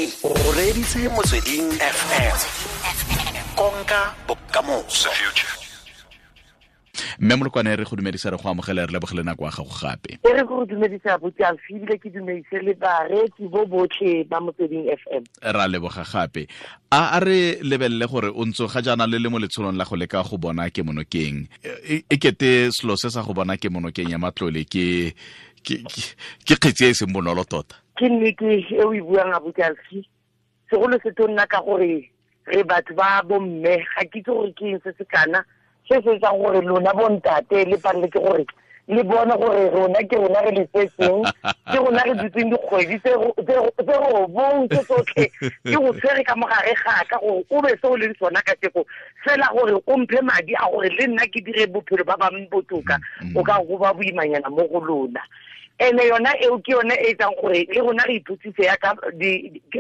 O reditse Motsweding FM, konka bokamoso. Mme Molokwane, re go dumedisa, re go amogele, re lebogele nako ya gago gape. E re go dumedisa abuti Alfi, ebile ke dumedise le bareetsi bo botlhe ba Motsweding FM. Ra leboga gape. A re lebelele gore o ntse ga jaana le le mo letsholong la go leka go bona kemonokeng. E kete selo se sa go bona kemonokeng ya matlole ke kgetsi e e seng bonolo tota. Ke nnete e o e buang, abuti Alfi, segolo se to nna ka gore re batho ba bomme, ga ke itse gore ke eng se se kana se se etsang gore lona bontate le palele ke gore le bone gore rona ke rona re le tsetseng, ke rona re dutseng dikgwedi tse 9 tse tsotlhe, ke go tshwere ka mogare gaka gore o be se o leng sona ka teko fela, gore o mphe madi a gore le nna ke dire bophelo ba bangwe botoka, o ka go ba boimanyana mo go lona. Ene yona eo ke yone e etsang gore le rona re ipotsise ya ka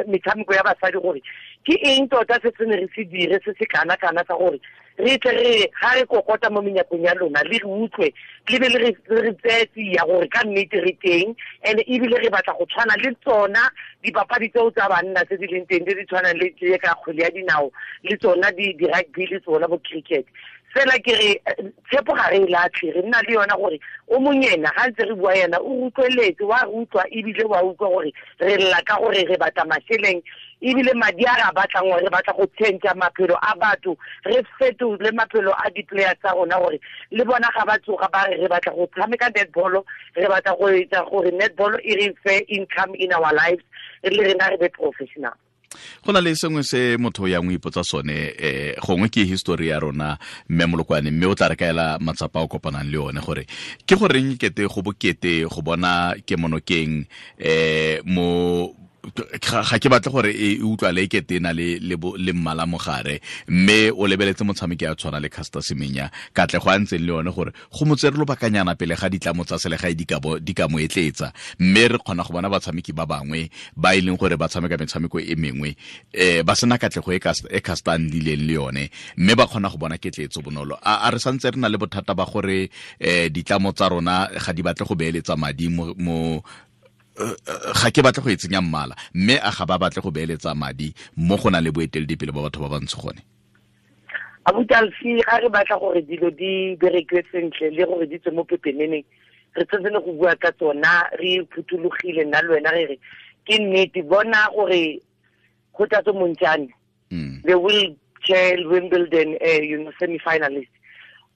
metshameko ya basadi gore ke eng tota se se ne re se dire se se kana-kana sa gore re tle re ga re kokota mo menyakong ya lona le re utlwe le be le re tseye tsia gore ka nnete re teng, and ebile re batla go tshwana le tsona dipapadi tseo tsa banna tse di leng teng, tse di tshwanang le tse ka kgwele ya dinao le tsona di-rugby le tsona bo cricket. Fela ke re tshepo ga re e latlhe, re nna le yona gore o monyena ga ntse re bua yena o utlweletse, wa re utlwa ebile wa utlwa gore re lla ka gore re batla mašeleng, ebile madi a re a batlang gore re batla go change maphelo a batho, re fetole maphelo a di-player tsa rona gore le bona ga ba tsoga ba re re batla go tshameka netball, re batla go etsa gore netball e re fe income in our lives, le rena re be professional. Go na le sengwe se motho ya ngwe ipotsa sone, gongwe ke history ya rona, mme Molokwane, mme o tla re kaela matsapa a o kopanang le one gore ke goreng kete go bokete go bona kemonokeng mo ga ke batle gore e utlwale e kete e na le mmala mogare, mme o lebeletse motshameki a tshwana le Caster Semenya, katlego a ntseng le yone gore go mo tsere lobakanyana pele ga ditlamo tsa selegae di ka mo etletsa, mme re kgona go bona batshameki ba bangwe ba e leng gore ba tshameka metshameko e mengwe ba sena katlego e Caster a nnileng le yone, mme ba kgona go bona ketletso bonolo. A re santse re na le bothata ba gore ditlamo tsa rona ga di batle go beeletsa madi mo ga ke batle go e tsenya mmala, mme a ga ba batle go beeletsa madi mo go na le boeteledipele ba batho ba bantsho gone? Abuti Alfi, ga re batla gore dilo di berekiwe sentle le gore di tswe mo pepeneneng, re tshwanetse le go bua ka tsona re phuthologile nna le wena re re ke nnete, bona gore Kgothatso Montjane, the wheelchair Wimbledon semi-finalist,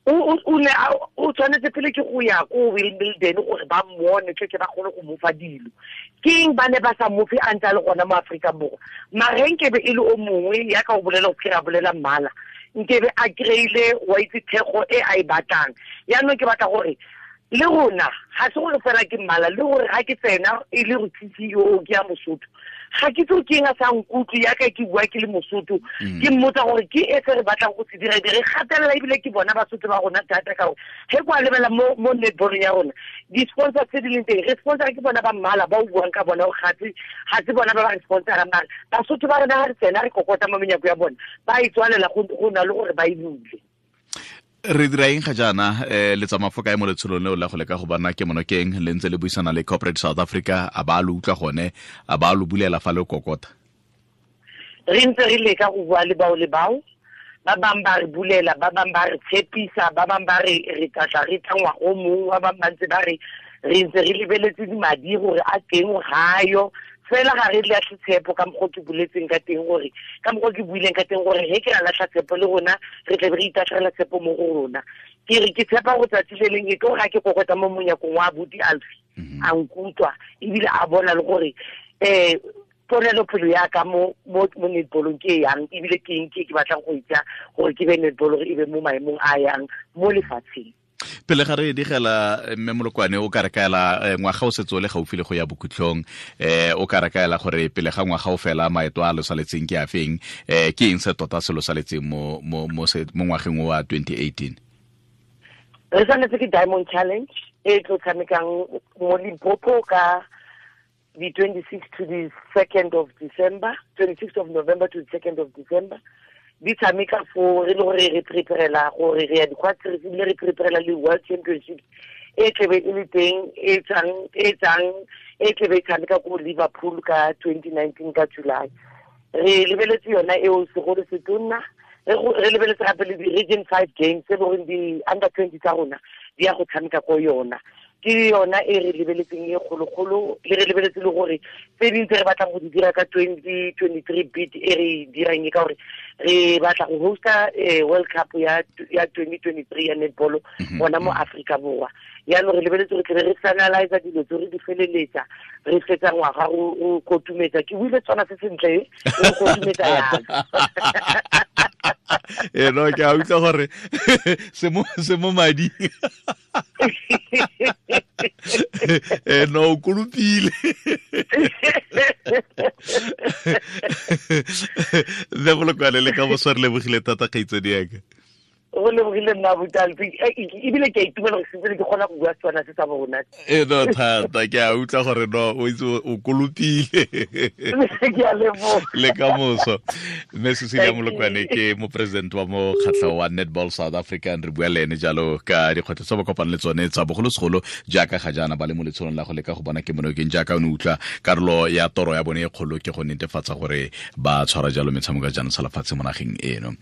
o tshwanetse pele ke go ya ko Wimbledon gore ba mmone tle ke ba kgone go mo fa dilo. Ke eng ba ne ba sa mo fe a ntse a le gona mo Aforika Borwa? Mara nkebe e le o mongwe ya ka o bolela go kry-a bolela mmala, nkebe a kry-ile wa itse thekgo e a e batlang. Yaanong ke batla gore le rona ga se gore fela ke mmala, le gore ga ke tsena e le go CEO ke ya Mosotho, ga ke itse ke eng a sa nkutlwe yaka ke bua ke le Mosotho, ke mmotsa gore ke e se re batlang go se dira, re gatelela ebile ke bona Basotho ba rona thata ka gore ge kwa lebela mo netball ya rona di-sponsor tse di leng teng, re sponsor ke bona ba mmala ba o buang ka bona gore ga se bona ba ba re sponsorang, mare Basotho ba rona ga re tsena re kokota mo menyako ya bona ba e tswalela go na le gore ba e bule. Re dira eng ga jaana, le tsamaya fo kae mo letsholong leo la go leka go bona kemonokeng, le ntse le buisana le Corporate South Africa, a ba lo utlwa gone, a ba lo bulela fa le kokota? Re ntse re leka go bua le bao le bao, ba bang ba re bulela, ba bang ba re tshepisa, ba bang ba re re tla tla re tla ngwaga o mongwe, ba bang ba ntse ba re re ntse re lebeletse madi gore a teng ga yo. Fela ga re latlhe tshepo ka mokgwa ke boletseng ka teng gore, ka mokgwa ke buileng ka teng gore he ke ra latlha tshepo le rona re tle re itatlhela tshepo mo go rona. Ke re ke tshepa go tsatsi le leng e tlo ga ke kokota mo monyakong wa abuti Alfi, a nkutlwa ebile a bona le gore ponelopele ya ka mo netballong ke yang, ebile ke eng ke ke batlang go itsa gore ke be netball gore e be mo maemong a yang mo lefatsheng. Pele ga re digela, mme Molokwane, o ka re kaela, ngwaga o setse o le gaufi le go ya bokhutlong, o ka re kaela gore pele ga ngwaga o fela maeto a lo saletseng ke a feng, ke eng se tota se lo saletseng mo ngwageng wa 2018? Re saletse ke Diamond Challenge e tlo tshamekang mo Limpopo ka the 26th to the 2nd of December, 26th of November to the 2nd of December. Di tshameka fo re le gore re preparela gore re ya di-quad series, ebile re preparela le World Championships E tlebe e le teng e tsang e tlebe e tshameka ko Liverpool ka 2019 ka July. Re lebeletse yona eo segolo se tonna, re lebeletse gape le di-region 5 games tse leng gore di-under 20 tsa rona di ya go tshameka ko yona. Ke yona e re lebeletseng e kgologolo, le re lebeletse le gore tse dingwe tse re batlang go di dira ka 2023 bid e re dirang e ka gore re batla go hosta World Cup ya 2023 ya netball gona mo Afrika Borwa. Yaanong re lebeletse gore tlebe re finalize dilo tse re di feleletsa, re fetsa ngwaga go kotumetsa. Ke buile tsona se sentle, re kotumetsa yana. E no, ke a utlwa gore se mo mading. E no, o kolopile. Mme Molokwane, le ka moso re lebogile thata kgaitsadi yaka. Go lebogile nna Botalpi, ebile ke a itumela gore sentse ke kgona go bua Setswana se sa bona. E no thata, ke a utlwa gore no o itse o kolopile. Ke a leboga. Le ka moso. Mme Cecilia Molokwane ke mopresident wa mokgatlho wa Netball South Africa, re bua le ene jalo ka dikgwetlho tse ba kopang le tsone tsa bogolosegolo jaaka ga jaana ba le mo letsholong la go leka go bona kemonokeng, jaaka o ne utlwa karolo ya toro ya bone e kgolo ke go netefatsa gore ba tshwara jalo metshameko ya jaanong sa lefatshe mo nageng eno.